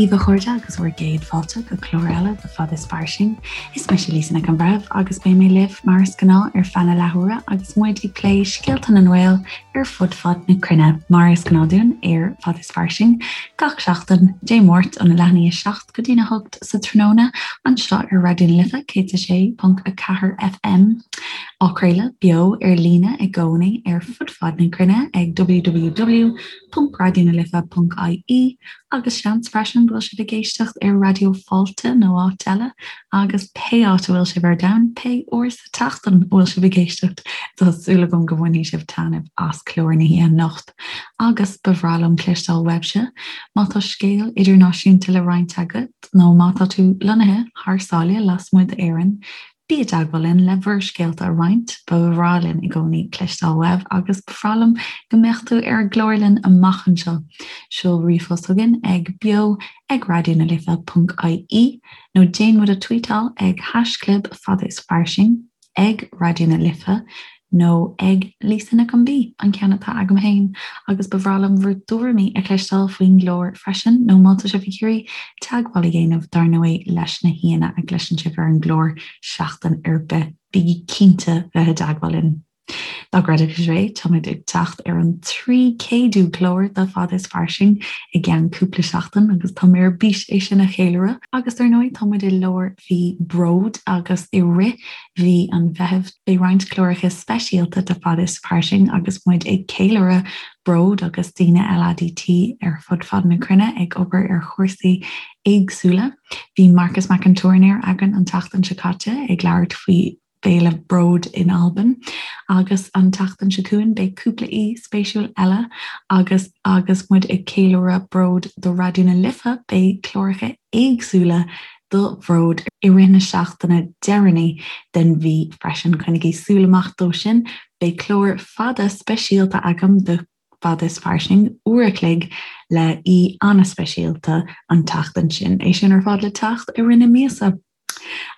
daoibh a chairde agus bhur gcéad fáilte go clár eile de Fad is Fairsing. Is mise Lisa Nic an Bhreithimh agus beidh mé libh mar is gnáth ar feadh na leathuaire agus muid ag plé scéalta na nGael ar fud fad na cruinne mar is gnáth dúinn ar Fad is Fairsing gach seachtain, Dé Máirt óna leath i ndiaidh 7 go dtína 8 sa tráthnóna anseo ar Raidió na Life 106.4 FM, á craoladh beo ar líne i gcónaí ar fud fad na cruinne ag www.raidionalife.ie agus seans freisin go bhfuil sibh ag éisteacht ar Raidió Fáilte nó áit eile agus pé áit a bhfuil sibh ar domhan, pé uair sa tseachtain a bhfuil sibh ag éisteacht, tá súil agam go mbainfidh sibh taitneamh as clár na hoíche anocht. Agus ba bhreá liom cloisteáil uaibhse má tá scéal idirnáisiúnta le roinnt agat nó má tá tú lonnaithe thar sáile lasmuigh d'Éirinn, bí i dteagmháil linn le bhur scéalta a roinnt, ba bhreá linn i gcónaí cloisteáil uaibh agus ba bhreá liom go mbeadh tú ar an gclár linn amach anseo. Seol ríomhphost chugainn ag beo ag raidionalife.ie nó déan muid a tweetáil ag haischlib fada is fairsing. ag Raidió na Life nó ag Lisa Nic an B, an ceann atá agam féin, agus ba bhreá liom bhur dtuairimí a chloisteáil faoin gclár freisin, nó má tá sibh ag iarraidh teagmháil a dhéanamh, dar ndóigh, leis na haíonna a gcloiseann sibh ar an gclár seachtain ar bith, bígí cinnte bheith i dteagmháil linn. Dá gcreidfeadh sibh é, táimid ag teacht ar an 300ú clár de Fada is Fairsing i gceann cúpla seachtain agus tá mé ar bís é sin a cheiliúradh. Agus dar ndóigh, tá muid i lár mhí Bród agus i rith mhí an Mheithimh beidh roinnt cláracha speisialta de Fada is Fairsing agus muid ag ceiliúradh Bród agus daoine LADT ar fud fad na cruinne ag obair ar chúrsaí éagsúla. Bhí Marcas Mac an Tuairneir againn an tseachtain seo caite ag labhairt faoi Féile Bród in Albain agus an tseachtain seo chugainn beidh cúpla aoi spéisiúil eile agus agus muid ag ceiliúradh Bród do Raidió na Life beidh cláracha éagsúla do Bhród i rith na seachtaine deireanaí den mhí freisin. Coinnigí súil amach dó sin. Beidh clár fada speisialta agam do Fada is Fairsing, uair a chloig le aoi an-speisialta an tseachtain sin. É sin ar fad le teacht i rith na míosa.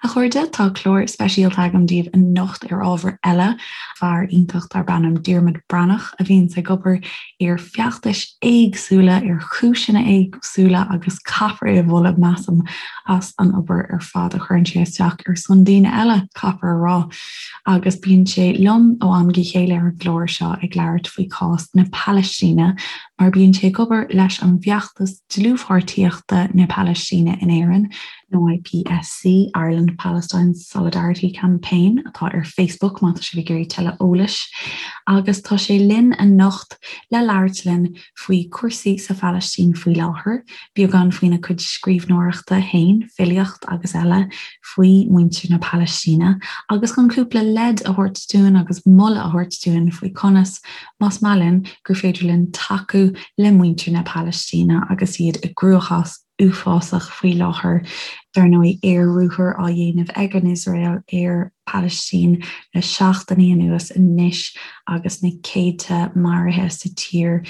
A chairde, tá clár speisialta agam daoibh anocht ar ábhar eile. Fear iontach darb ainm Diarmuid Breathnach a bhíonns ag obair ar feachtais éagsúla, ar chúiseanna éagsúla agus caithfear é a mholadh, measaim, as an obair ar fad a chuireann sé isteach ar son daoine eile, caithfear a rá. Agus bíonn sé liom ó am go chéile ar an gclár seo ag labhairt faoi chás na Palaistíne mar bíonn sé ag obair leis an bhfeachtas dlúthpháirtíochta na Palaistíne in Éirinn, nó IPSC, Ireland Palestine Solidarity Campaign, atá ar Facebook má tá sibh ag iarraidh tuilleadh eolais. Agus tá sé linn anocht le labhairt linn faoi chúrsaí sa Phalaistín faoi láthair, beagán faoina chuid scríbhneoireachta féin, filíocht agus eile, faoi mhuintir na Palaistíne, agus chun cúpla leid a thabhairt dúinn agus moladh a thabhairt dúinn faoi conas, más maith linn, gur féidir linn tacú le muintir na Palaistíne agus iad i gcruachás uafásach faoi láthair. Dar ndóigh, aer-ruathar á dhéanamh ag an Iosrael ar Palaistín le seachtainí anuas anois agus na céadta maraithe sa tír.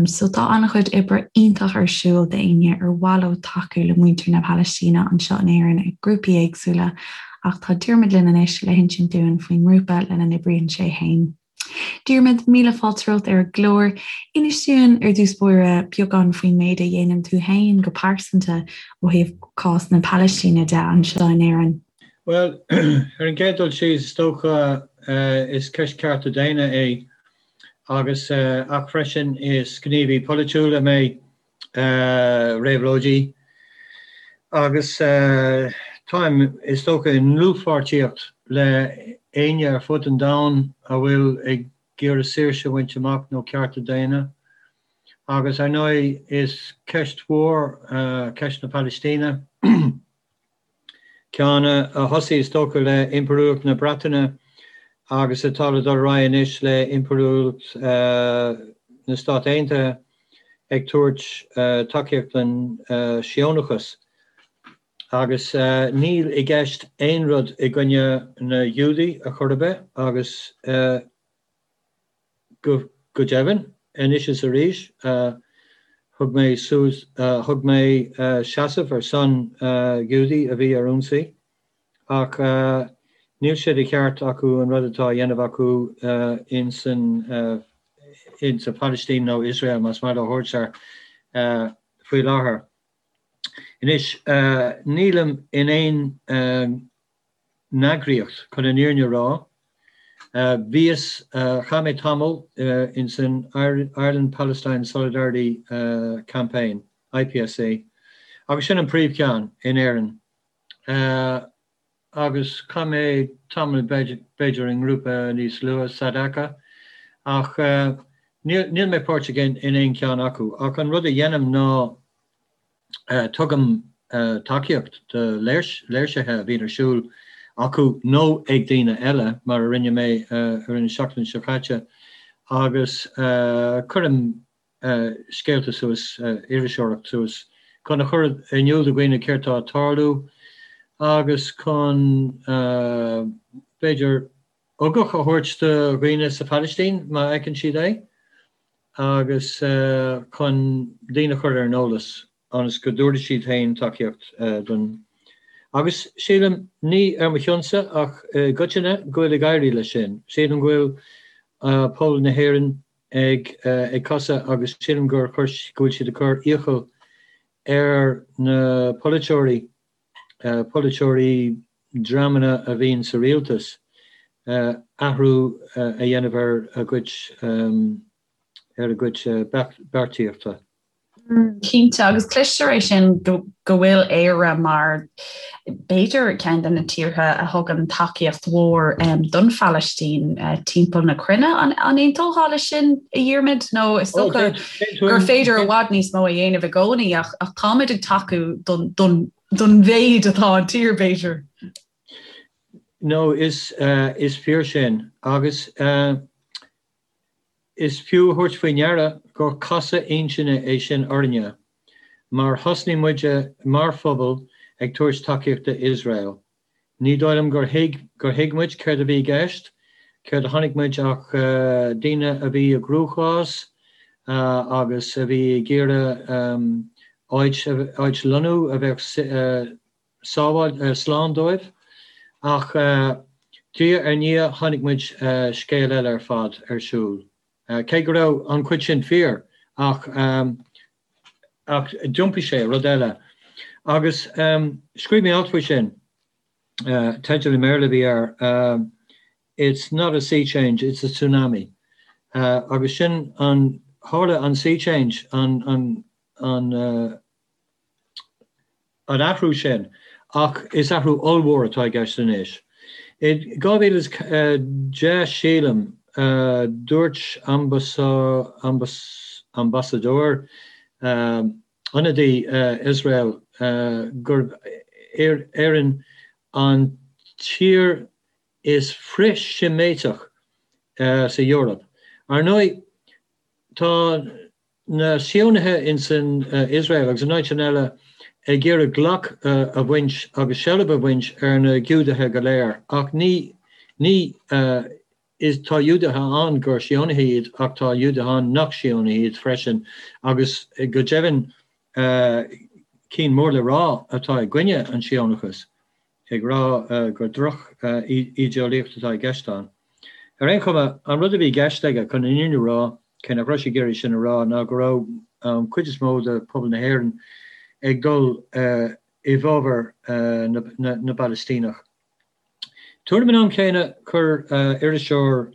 So tá an-chuid oibre iontach ar siúl d'éinne ar mhaith leo tacú le muintir na Palaistíne anseo in Éirinn ag grúpaí éagsúla ach tá Diarmuid linn anois le hinsint dúinn faoin ngrúpa lena n-oibríonn sé féin. Diarmuid, míle fáilte romhat ar an gclár. Inis dúinn ar dtús báire beagán faoin méid a dhéanann tú féin go pearsanta ó thaobh cás na Palaistíne de anseo in Éirinn. Bhuel, ar an gcéad dul síos, is dócha is ceist cearta daonna é agus ach freisin is gníomhaí polaitiúil mé. réabhlóidí agus táim, is dócha, i ndlúthpháirtíocht le éinne ar fud an domhain a bhfuil ag iarraidh saoirse a bhaint amach nó cearta daonna. Agus ar ndóigh is ceist mhór ceist na Palaistíne. Ceann a thosaigh, is dócha, le Impiriúlacht na Breataine agus atá le dul ar aghaidh anois le Impiriúlacht na Stát Aontaithe ag tabhairt tacaíocht don Síónachas. Agus níl i gceist aon rud i gcoinne na Giúdaigh a chor ar bith agus Go deimhin, anois is arís, thug mé suas, thug mé seasamh ar son Ghiúdaigh a bhí ar ionsaí, ach níl sé de cheart acu an rud atá á dhéanamh acu in san Phalaistín nó Iosrael, más maith leo a thabhairt air, faoi láthair. Anois, nílim in aon eagraíocht, chun an fhírinne a rá. Bhíos, chaith mé tamall ins an Ireland Palestine Solidarity Campaign, IPSC, agus sin an príomhcheann in Éirinn. Agus chaith mé tamall b'fhéidir i ngrúpa níos lú, Sadaqa, ach níl mé páirteach in aon cheann acu. Ach an rud a dhéanaim ná tugaim tacaíocht do léirsithe a bhíonn ar siúl acu nó ag daoine eile, mar a rinne mé ar an seachtain seo caite, agus cuirim scéalta suas, iriseoireacht suas, chun a chur in iúl do dhaoine céard tá ag tarlú agus chun, b'fhéidir, ugach a thabhairt do dhaoine sa Phalaistín má fheiceann siad é agus chun daoine a chur ar an eolas ionas go dtabharfaidh siad féin tacaíocht don Agus sílim, ní ar mo chionsa ach i gcoitinne, go bhfuil ag éirí leis sin. Sílim go bhfuil pobal na hÉireann ag ag casadh agus sílim gur chuir go bhfuil siad ag cur iachall ar na polaiteoirí, polaiteoirí, dreamanna a bhíonn sa rialtas, athrú a dhéanamh ar a gcuid ar a gcuid beartaíochta. Cinnte, agus cloistear é sin go bhfuil Éire mar, b'fhéidir, ceann de na tíortha a thugann tacaíocht mhór don Phalaistín timpeall na cruinne. An aontófá leis sin, a Dhiarmaid? Nó is dócha gur féidir i bhfad níos mó a dhéanamh i gcónaí ach táimid ag tacú don don mhéid atá an tír, b'fhéidir. No, is fíor sin. Agus is fiú a thabhairt faoi ndeara gur casadh intinne é sin orainne, mar thosnaigh muide mar phobal ag tabhairt tacaíocht d'Iosrael. Ní dóigh liom gur thuig gur thuig muid céard a bhí i gceist, céard a chonaic muid ach daoine a bhí i gcruachás agus a bhí ag iarraidh áit áit lonnú a bheadh sábháil slán dóibh. Ach diaidh ar ndiaidh chonaic muid scéal eile ar fad ar siúl. Cé go raibh an chuid sin fíor, ach ach d'iompaigh sé i rud eile. Agus scríobh mé alt faoi sin, teideal i mBéarla a bhí air, It's not a sea change, it's a tsunami. Agus sin an, tharla an sea change, an, an, an, an athrú sin, ach is athrú ollmhór atá i gceist anois. I 2010, sílim, dúirt ambasadóir, ionadaí Iosrael gurb Éirinn an tír is frith-Sheimíteach sa Eoraip. Ar ndóigh, tá na Síónaithe ins an Iosrael agus in áiteanna eile ag iarraidh glac a bhaint agus seilbh a bhaint ar na Giúdaithe go léir ach ní ní is tá Giúdaithe ann gur Síónaithe iad ach tá Giúdaithe ann nach Síónaithe iad freisin agus go deimhin cinn mór le rá atá i gcoinne an Síónachas. ag rá gur droch-ídeolaíocht atá i gceist ann. Ar aon chuma, an rud a bhí i gceist aige, chun an fhírinne a rá, cé nach raibh sé ag iarraidh sin a rá, ná go raibh an chuid is mó de phobal na hÉireann ag dul i bhfabhar na bPalaistíneach. Tuairim an am chéanna, chuir iriseoir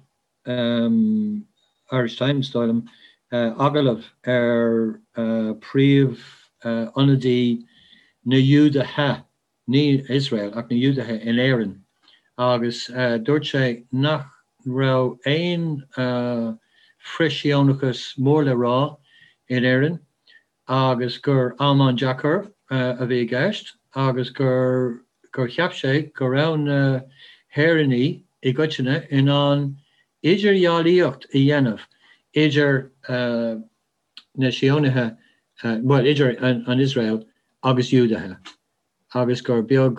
Irish Times, dóigh liom, agallamh ar phríomh-ionadaí na Giúdaithe ní Iosrael ach na Giúdaithe in Éirinn agus dúirt sé nach raibh aon frith-Shíónachas mór le rá in Éirinn agus gur am an-deacair a bhí i gceist agus gur gur cheap sé go raibh na hÉireannaigh i gcoitinne in ann idirdhealaíocht a dhéanamh idir na Síónaithe, bhuel, idir an Iosrael agus Iúdaithe, agus gur beag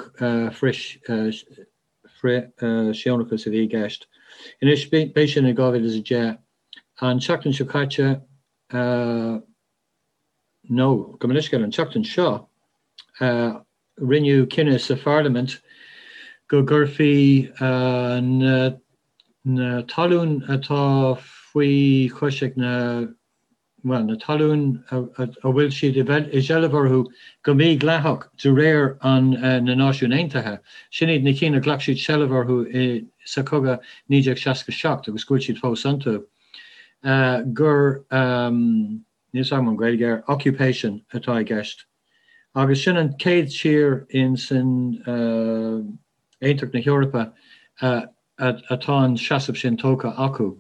frith-Shíónachas a bhí i gceist. Anois, b'é sin in 2010. An tseachtain seo caite, nó, gabh mo leithscéal, an tseachtain seo, rinneadh cinneadh sa pharlaimint go gcuirfí na talún atá faoi chois ag na. bhuel, na talún a bhfuil siad i seilbh orthu go mídhleathach de réir an na Náisiún Aontaithe, sin iad na cinn a ghlac siad seilbh orthu sa chogadh 1967 agus go bhfuil siad fós iontu, gur, níl 's agam an Ghaeilge air, occupation atá i gceist. Agus sin an chéad tír in san Aontacht na hEorpa atá an seasamh sin tógtha acu.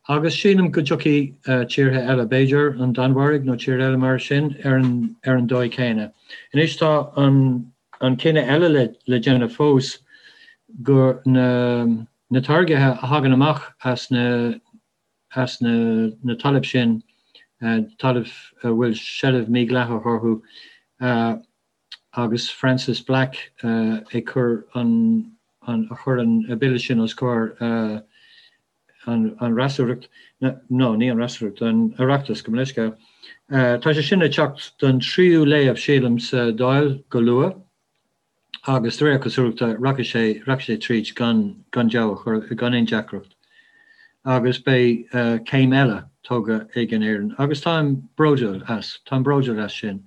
Agus sílim go dtiocfaidh tíortha eile, b'fhéidir an Danmhairg nó tír eile mar sin, ar an dóigh chéanna. Anois tá an cinneadh eile le déanamh fós gur na táirgithe a thagann amach as na as na talaimh sin, talaimh a bhfuil seilbh mídhleathach orthu, agus Frances Black ag cur an a chuir an bille sin os comhair an fhreasúracht, no, ní an fhreasúracht, an Oireachtas, gabh mo leithscéal. Tá sé sin le teacht don tríú léamh, sílim, sa Dáil go luath. agus de réir cosúlachta rachaidh sé rachaidh sé tríd gan gan deabhadh gan aon deacracht agus beidh céim eile tógtha ag an Éirinn agus táim bródúil as, táim bródúil as sin.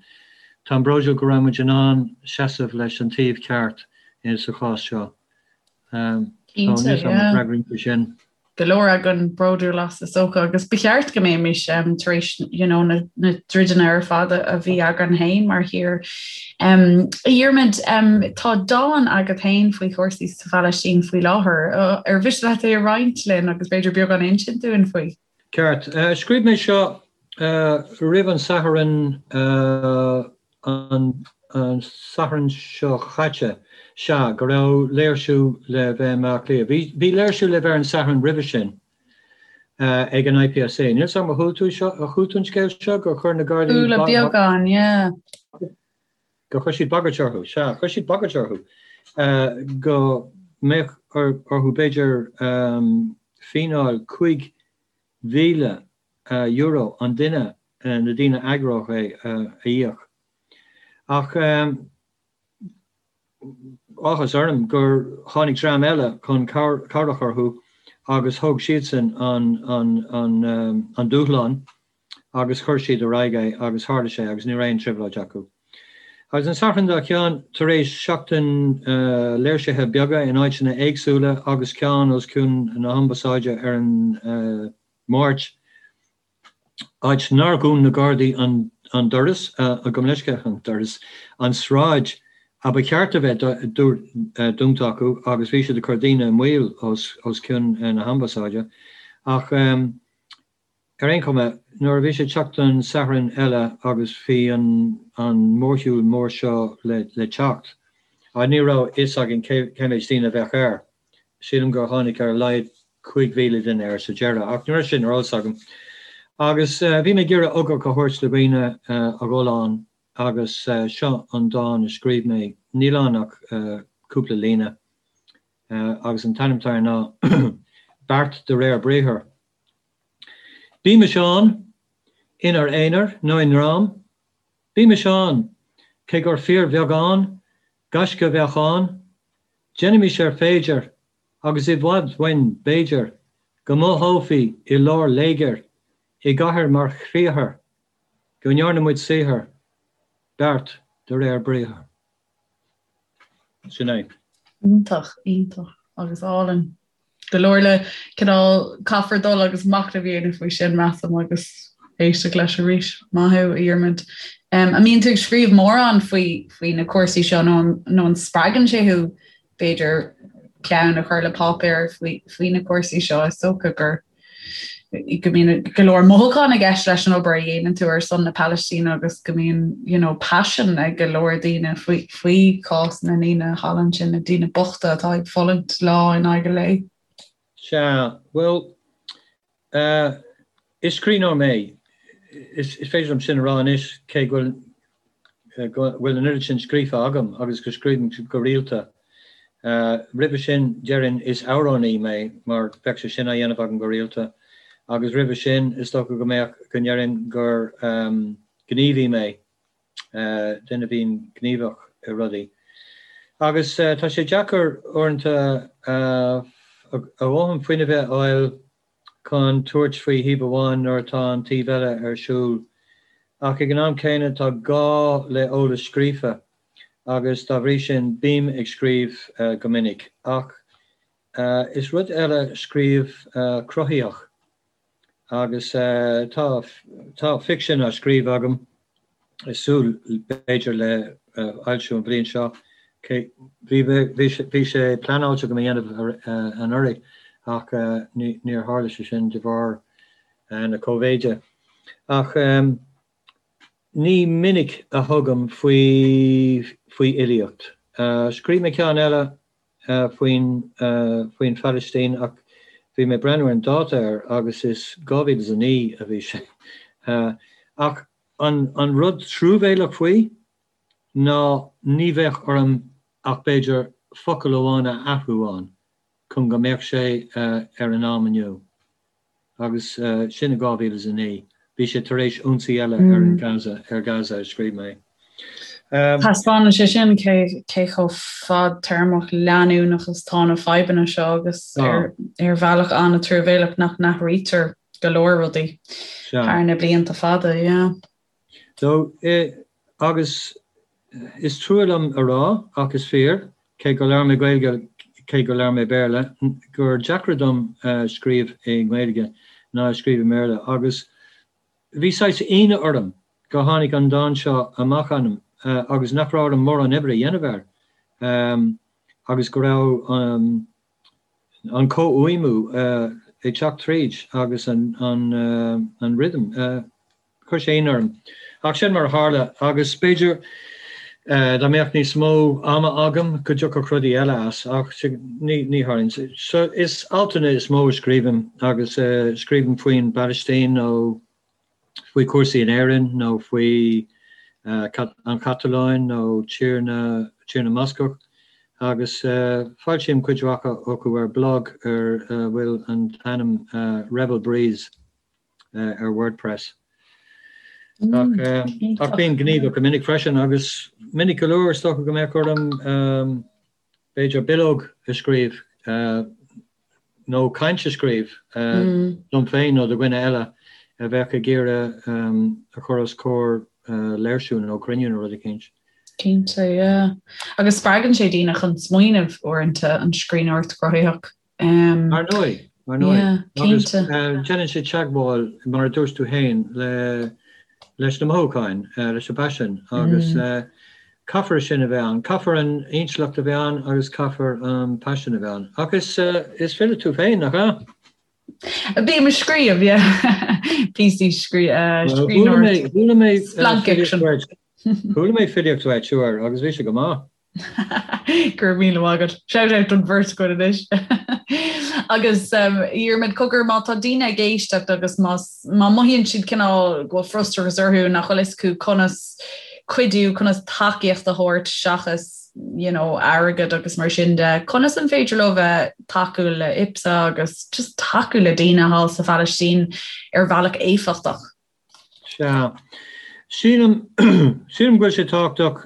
Táim bródúil go raibh muid in ann seasamh leis an taobh ceart sa chás seo. So níl 's agam an bhfreagraíonn sé sin. go leor againn bródúil as is dócha agus ba cheart go mbeimis um, tar éis you know, na, na troideanna ar fad a bhí againn féin mar thír. Um, a Dhiarmaid, um, tá dán agat féin faoi chúrsaí sa Phalaistín faoi láthair. Uh, ar mhiste leat é a roinnt linn agus b'fhéidir beagán a insint dúinn faoi? Ceart. Uh, scríobh mé seo uh, roimh an Satharn uh, an Satharn seo chaite, sea, go raibh léirsiú le bheith i mBaile Átha Cliath. Bhí, bhí léirsiú le bheith ar an Satharn roimhe sin ag an IPSA. Níl 's agam ar chuala tú seo, ar chuala tú an scéal seo, gur chuir na Gardaí Chuala beagán, yeah. gur chuir siad bagairt orthu, sea, chuir siad bagairt orthu go mbeadh orthu b'fhéidir fíneáil €5,000 euro an duine, na daoine a eagródh é, a íoc. Ach áthas orm gur tháinig dream eile chun cabhrach orthu agus thóg siadsan an dúshlán agus chuir siad ar aghaidh é agus tharla sé agus ní raibh aon trioblóid acu. Agus an Satharn dár gcionn, tar éis seachtain léirsithe beaga in áiteanna éagsúla agus ceann os cionn na hAmbasáide ar an Máirt, áit nár dhún na Gardaí an doras, gabh mo leithscéal, an doras, an sráid a ba cheart a bheith dúnta acu agus bhí siad ag cur daoine i mbaol os cionn na hAmbasáide. Ach ar aon chuma, nuair a bhí sé ag teacht don Satharn eile agus bhí an mórshiúl mór seo le teacht, ní raibh a fhios againn cé méid daoine a bheadh air. Sílim gur tháinig ar a laghad 5,000 duine air sa deireadh, ach ní raibh sin ar eolas agam. Agus bhí mé ag iarraidh ugach a thabhairt do dhaoine a dhul ann agus seo an dán a scríobh mé. Níl ann ach cúpla líne agus an t-ainm atá air ná Beart de réir Briathair. Bímis ann, inár n-aonar nó i ndream, bímis ann, cé gur fíorbheagán gaisce a bheadh ann, déanaimis ar féidir Agus i bhfad uainn, b'fhéidir, go mothófaí i lár léigir, i gcathair mar chriathar, go ndearna muid saothar, beart de réir briathair. Sin é. Iontach, iontach agus álainn. Go leor le cineál caithfear dul agus machnamh a dhéanamh faoi sin, measaim, agus éisteacht leis arís. Maith thú, a Dhiarmaid. An mbíonn tú ag scríobh mórán faoi faoi na cúrsaí seo nó nó an spreagann sé thú b'fhéidir peann a chur le páipéar faoi faoi na cúrsaí seo is dócha gur go mbíonn go leor mothúchán i gceist leis an obair a dhéanann tú ar son na Palaistíne agus go mbíonn you know, paisean ag go leor daoine faoi faoi chás na ndaoine thall ansin, na daoine bochta atá ag fulaingt lá in aghaidh an lae. Sea, bhuel, Is scríbhneoir mé. Is féidir liom sin a rá anois, cé go bhfuil an oiread sin scríofa agam agus go scríobhaim go rialta. Roimhe sin, déarfainn is amhránaí mé, mar bheadh sé sin á dhéanamh agam go rialta. Agus roimhe sin, is dócha go mbeadh, go ndéarfainn gur gníomhaí mé. duine a bhíonn gníomhach i rudaí. Agus tá sé deacair uaireanta a dhóthain fuinnimh a fháil. chun tabhairt faoi thaobh amháin nuair atá an taobh eile ar siúl. Ach ag an am céanna tá gá le eolas scríofa agus dá bhrí sin bím ag scríobh go minic. Ach is rud eile scríobh cruthaitheach. Agus tá tá ficsean á scríobh agam, ag súil b'fhéidir le foilsiú an bhliain seo. Bhí bhí sé pleanáilte agam a dhéanamh anuraidh ach níor tharla sé sin de bharr na Cóivéide. Ach ní minic a thugaim faoi faoi fhilíocht. Scríobh mé ceann eile faoin faoin Phalaistín ach bhí mé ag breathnú ar an dáta air agus is 2009 a bhí sé. Ach an an rud truamhéalach faoi ná ní bheadh orm ach b'fhéidir focal amháin a athrú ann chun go mbeadh sé ar an am inniu. Agus sin i 2009. Bhí sé tar éis ionsaí eile ar an Gaza, ar Gaza a scríobh mé. Taispeánann sé sin cé cé chomh fadtéarmach leanúnach is atá na fadhbanna seo agus ar ar bhealach an-truamhéalach nach n-athraítear go leor rudaí thar na blianta fada, yeah. So, agus is trua liom a rá, ach is fíor, cé go labhair mé Gaeilge, cé go labhair mé Béarla, gur deacra dom scríobh i nGaeilge ná scríobh i mBéarla. Agus bhí saghas ionadh orm go tháinig an dán seo amach asam agus nach raibh orm mórán oibre a dhéanamh air agus go raibh an comhfhuaimniú ag teacht tríd agus an rhythm. Chuir sé ionadh orm. Ach sin mar a tharla agus b'fhéidir dá mbeadh níos mó ama agam go dtiocfadh rudaí eile as ach ní tharlaíonn. So is altanna is mó a scríobhaim agus scríobhaim faoin bPalaistín nó faoi chúrsaí in Éirinn nó faoi an Chatalóin nó Tír na Tír na mBascach agus foilsím cuid mhaith acu ar blog ar a bhfuil an t-ainm Rebel Breeze. ar WordPress. Ach bím gníomhach go minic freisin agus minic go leor is dócha go mbeadh orm b'fhéidir bileog a scríobh nó caint a scríobh dom féin nó do dhuine eile a bheadh ag iarraidh a chur os comhair léirsiú nó cruinniú nó rud eicínt. Cinnte, yeah. Agus spreagann sé daoine chun smaoineamh uaireanta an scríbhneoireacht chruthaitheach. Ar ndóigh, ar ndóigh. Agus déanann sé teagmháil, mar a dúirt tú féin, leis na mothúcháin, leis na paisin agus caithfear sin a bheith ann. Caithfear an intleacht a bheith ann agus caithfear an paisean a bheith ann. Ach is file tú féin, nach ea? Bím ag scríobh, yeah. Píosaí scríbhneoireachta. Chuala mé Chuala mé filíocht uait uair agus bhí sé go maith. Go raibh míle maith agat. Shout out don bheirt againn anois. Agus um, Dhiarmaid cogar má tá daoine ag éisteacht agus má má mothaíonn siad cineál go bhfuil frustrachas orthu nach bhfuil fhios acu conas cuidiú, conas tacaíocht a thabhairt seachas you know, airgead agus mar sin de, conas an féidir leo bheith tacú le IPSA agus just tacú le daoine thall sa Phalaistín ar bhealach éifeachtach? Sea. Sílim, sílim go bhfuil sé tábhachtach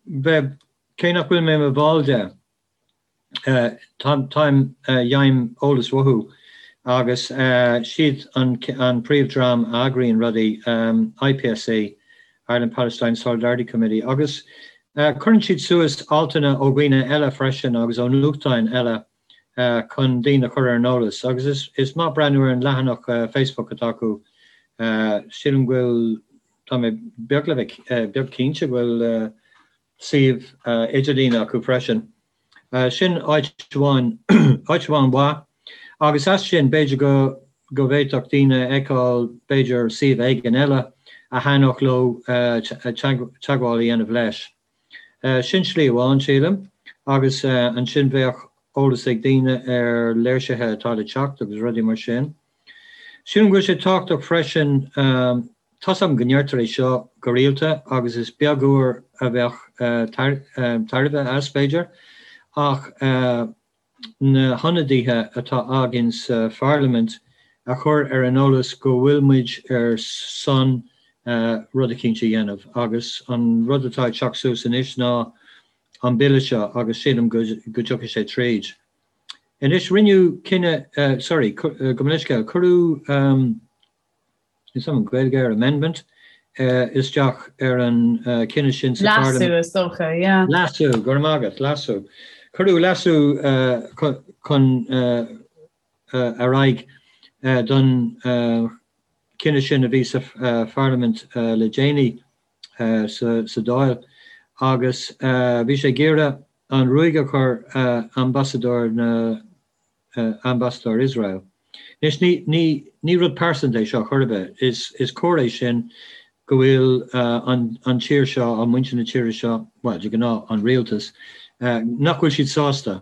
bheith, cé nach bhfuil mé i mo bhall de, táim, gheibhim eolas uathu agus siad an an príomhdhream a eagraíonn rudaí, IPSC, Ireland Palestine Solidarity Committee, agus cuireann siad suas altanna ó dhaoine eile freisin agus ó nuachtáin eile chun daoine a chur ar an eolas agus is maith breathnú ar an leathanach Facebook atá acu. Sílim go bhfuil, tá mé beag le bheith beag cinnte go bhfuil suíomh idirlíne acu freisin. Sin áit amháin, áit amháin mhaith agus as sin b'fhéidir go go bhféadfadh daoine a fheiceáil b'fhéidir suíomh éigin eile a thaitneodh leo teagmháil a dhéanamh leis. Sin slí amháin, sílim, agus ansin bheadh eolas ag daoine ar léirsithe atá le teacht agus rudaí mar sin. Sílim go bhfuil sé tábhachtach freisin, tá's agam go ndeirtear é seo go rialta agus is beag uair a bheadh tairbhe as, b'fhéidir, ach na hionadaithe atá againn sa pharlaimint a chur ar an eolas go bhfuil muid ar son rud eicínt a dhéanamh agus an rud atá ag teacht suas anois ná an bille seo agus sílim go dtiocfaidh sé tríd. Anois, rinneadh cinneadh, sorry, gabh mo leithscéal, cuireadh, níl a fhios agam an Ghaeilge air, amendment, isteach ar an chinneadh sin sa Pharlaimint. Leasú, is dócha, yeah. Leasú, go raibh maith agat, leasú. Cuireadh leasú chun ar aghaidh don chinneadh sin a bhí sa Pharlaimint le déanaí sa Dáil agus bhí sé ag iarraidh an ruaig a chur ambasadóir na ambasadóir Iosrael. Anois ní ní ní rud pearsanta é seo chor ar bith. Is is cóir é sin go bhfuil an an tír seo, an muintir na tíre seo, bhuel de ghnáth an rialtas, nach bhfuil siad sásta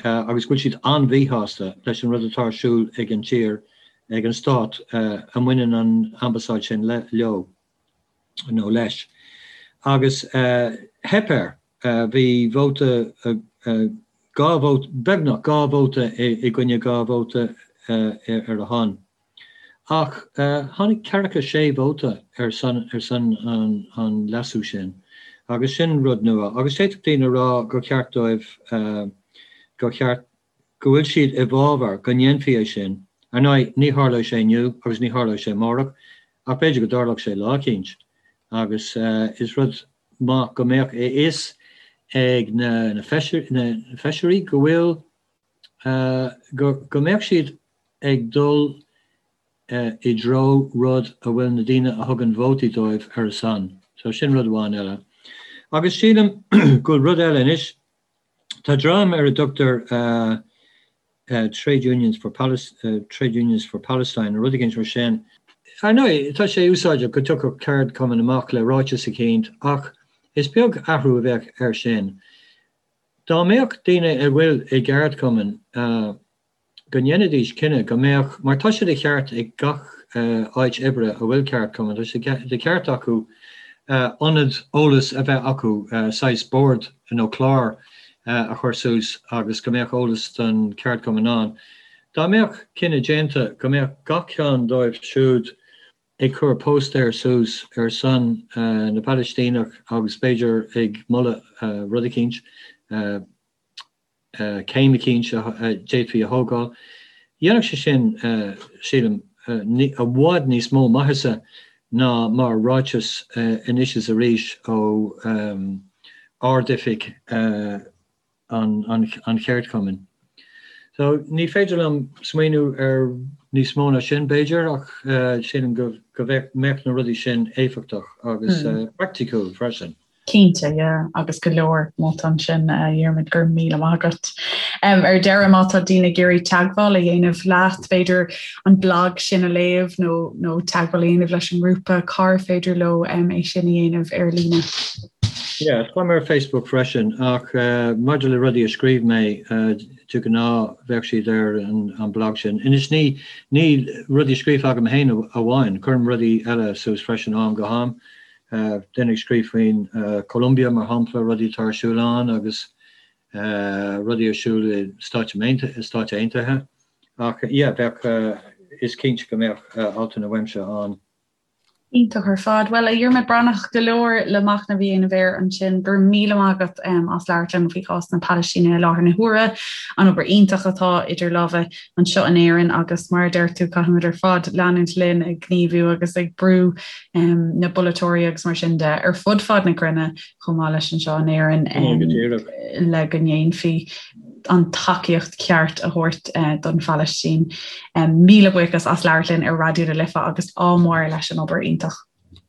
agus go bhfuil siad an-mhíshásta leis an rud atá ar siúl ag an tír, ag an stát a mbaineann an ambasáid sin leo nó leis. Agus theip air. Bhí vóta, 2 vóta, beagnach 2 vóta i gcoinne 2 vóta ar a shon. Ach tháinig ceathracha sé vóta ar son ar son an leasú sin, agus sin rud nua. Agus d'fhéadfadh daoine a rá gur cheart dóibh, gur cheart, go bhfuil siad i bhfabhar go ndéanfaí é sin. Ar ndóigh, ní tharlóidh sé inniu agus ní tharlóidh sé amárach, ach b'fhéidir go dtarlódh sé lá eicínt. Agus is rud maith go mbeadh a fhios ag na feisirí go bhfuil, go mbeadh siad ag dul i dtreo rud a bhfuil na daoine a thugann vótaí dóibh ar a son. So sin rud amháin eile. Agus sílim go bhfuil rud eile anois, tá dream ar a dtugtar Trade Unions for Trade Unions for Palestine nó rud éigin mar sin. Ar ndóigh, tá sé úsáideach go dtiocfadh ceardchumann amach le ráiteas eicínt ach is beag athrú a bheadh air sin. Dá mbeadh daoine a bhfuil i gceardchumann, go ndéanfaidís cinneadh go mbeadh, mar tá sé de cheart ag gach áit oibre a bhfuil ceardchumann, tá sé de cheart acu ionad eolais a bheith acu, saghas bord nó clár a chur suas agus go mbeadh eolas don cheardchumann ann. Dá mbeadh cinneadh déanta go mbeadh gach ceann dóibh siúd ag cur póstaer suas ar son na bPalaistíneach agus b'fhéidir ag moladh rud eicínt, céim eicínt a d'fhéadfaí a thógáil. Dhéanfadh sé sin, sílim, i bhfad níos mó maitheasa ná mar ráiteas anois is arís ó Ard-Oifig an cheardchumainn. So, ní féidir liom smaoineamh ar níos mó ná sin, b'fhéidir, ach sílim go mbeadh na rudaí sin éifeachtach agus praiticiúil freisin. Cinnte, yeah, agus go leor molta ansin, a Dhiarmuid, go raibh míle maith agat. Ar deireadh, má tá daoine ag iarraidh teagmháil a dhéanamh leat, b'fhéidir an blag sin a léamh nó nó teagmháil a dhéanamh leis an ngrúpa, cár féidir leo é sin a dhéanamh ar líne? Yeah, táim ar Facebook freisin, ach maidir le rudaí a scríobh mé, de ghnáth bheadh siad ar an blag sin. Anois ní ní rudaí scríofa agam féin amháin, cuirim rudaí eile suas freisin ó am go ham. Duine ag scríobh faoin Colombia mar shampla, rudaí atá ar siúl ann agus rudaí ar siúl i Stáit Aontaithe. Ach yeah, bheadh, is cinnte go mbeadh altanna uaimse ann. Iontach ar fad. Bhuel, a Dhiarmaid Breathnach, go leor le machnamh a dhéanamh air ansin. Go raibh míle maith agat as labhairt liom faoi chás na Palaistíne i láthair na huaire, an obair iontach atá idir lámha anseo in Éirinn agus mar a deir tú, caithfimid ar fad leanúint linn ag gníomhú agus ag brú na bpolaiteoirí agus mar sin de ar fud fad na cruinne chomh maith leis anseo in Éirinn le go ndéanfaí an tacaíocht ceart a thabhairt don Phalaistín. Míle buíochas as labhairt linn ar Raidió na Life agus ádh mór leis an obair iontach.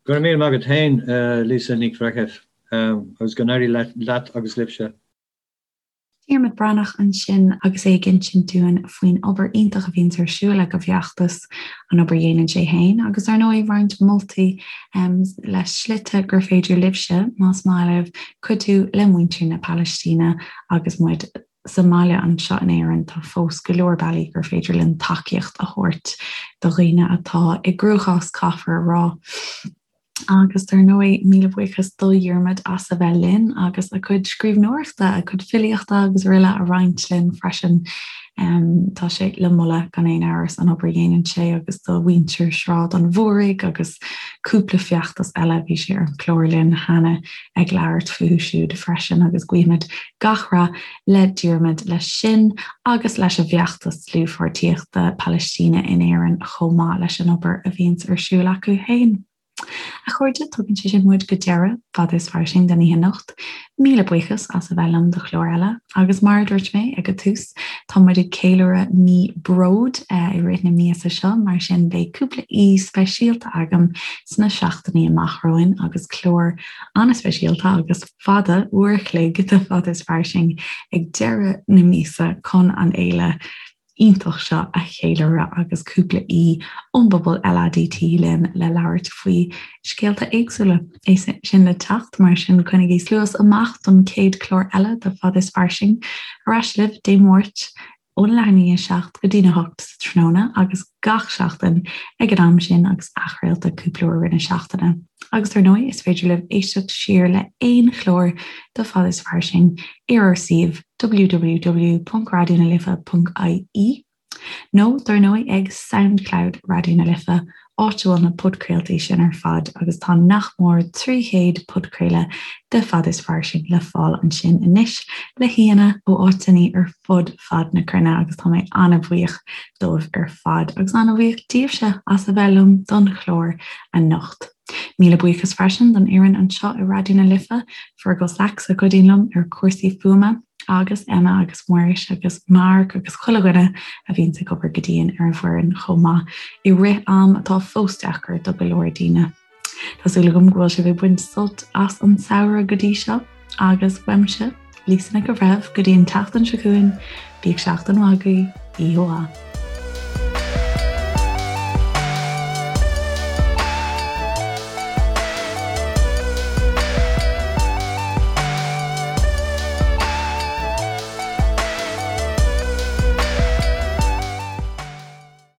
Go raibh míle maith agat féin, Lisa Nic Bhreithimh, agus go n-éirí leat agus libhse. Diarmuid Breathnach ansin agus é ag insint dúinn faoin obair iontach a bhíonns ar siúl ag an bhfeachtas, an obair a dhéanann sé féin agus ar ndóigh roinnt moltaí le slite gur féidir libhse, más maith libh, cuidiú le muintir na Palaistíne agus muid sa mbaile anseo in Éirinn. Tá fós go leor bealaí gur féidir linn tacaíocht a thabhairt do dhaoine atá i gcruachás, caithfear a rá. Agus dar ndóigh, míle buíochas do Dhiarmuid as a bheith linn agus a chuid scríbhneoireachta, a chuid filíochta agus araile a roinnt linn freisin. Tá sé le moladh gan aon amhras an obair a dhéanann sé agus do mhuintir Shráid an Mhúraigh agus cúpla feachtas eile, bhí sé ar an chlár linn cheana ag labhairt fúthu siúd freisin agus guímid gach rath le Diarmuid leis sin agus leis an bhfeachtas dlúthpháirtíochta Palaistíne in Éirinn chomh maith leis an obair a bhíonns ar siúl acu féin. A chairde, tugann sé sin muid go deireadh Fada is Fairsing don oíche anocht. Míle buíochas as a bheith liom do chlár eile agus mar a dúirt mé ag an tús, tá muid ag ceiliúradh mí bróid i rith na míosa seo, mar sin beidh cúpla aoi speisialta agam sna seachtainí amach romhainn agus clár an-speisialta agus fada, uair a chloig de Fada is Fairsing ag deireadh na míosa chun an fhéile iontach seo a cheiliúradh agus cúpla aoi ón bpobal LADT linn le labhairt faoi scéalta éagsúla. É sin le teacht, mar sin coinnigí cluas amach don chéad chlár eile de Fada is Fairsing. Ar ais libh Dé Máirt óna leath i ndiaidh a 7 go dtína 8 sa tráthnóna agus gach seachtain ag an am sin agus athchraolta cúpla uair i rith na seachtaine. Agus ar ndóigh is féidir libh éisteacht siar le haon chlár de Fada is Fairsing ar ár suíomh www.raidionalife.ie nó dar ndóigh ag Soundcloud Raidió na Life áit a bhfuil na podchraoltaí sin ar fad agus tá nach mór 300 podchraoladh de Fada is Fairsing le fáil ansin anois le haíonna ó áiteanna ar fud fad na cruinne agus tá mé an-bhuíoch dóibh ar fad agus an-bhuíoch díobhse as a bheith liom don chlár anocht. Míle buíochas freisin don fhoireann anseo i Raidió na Life, Fergal Sachs a chuidíonn liom ar chúrsaí fuaime, agus Emma agus Muiris agus Mark agus chuile dhuine a bhíonns ag obair go dian ar an bhfoireann chomh maith i rith am atá fós deacair do go leor daoine. Tá súil agam go bhfuil sibh ag baint sult as an samhradh go dtí seo agus uaimse, Lisa Nic an Bhreithimh, go dtí an tseachtain seo chugainn, bíodh seachtain mhaith agaibh, oíche mhaith.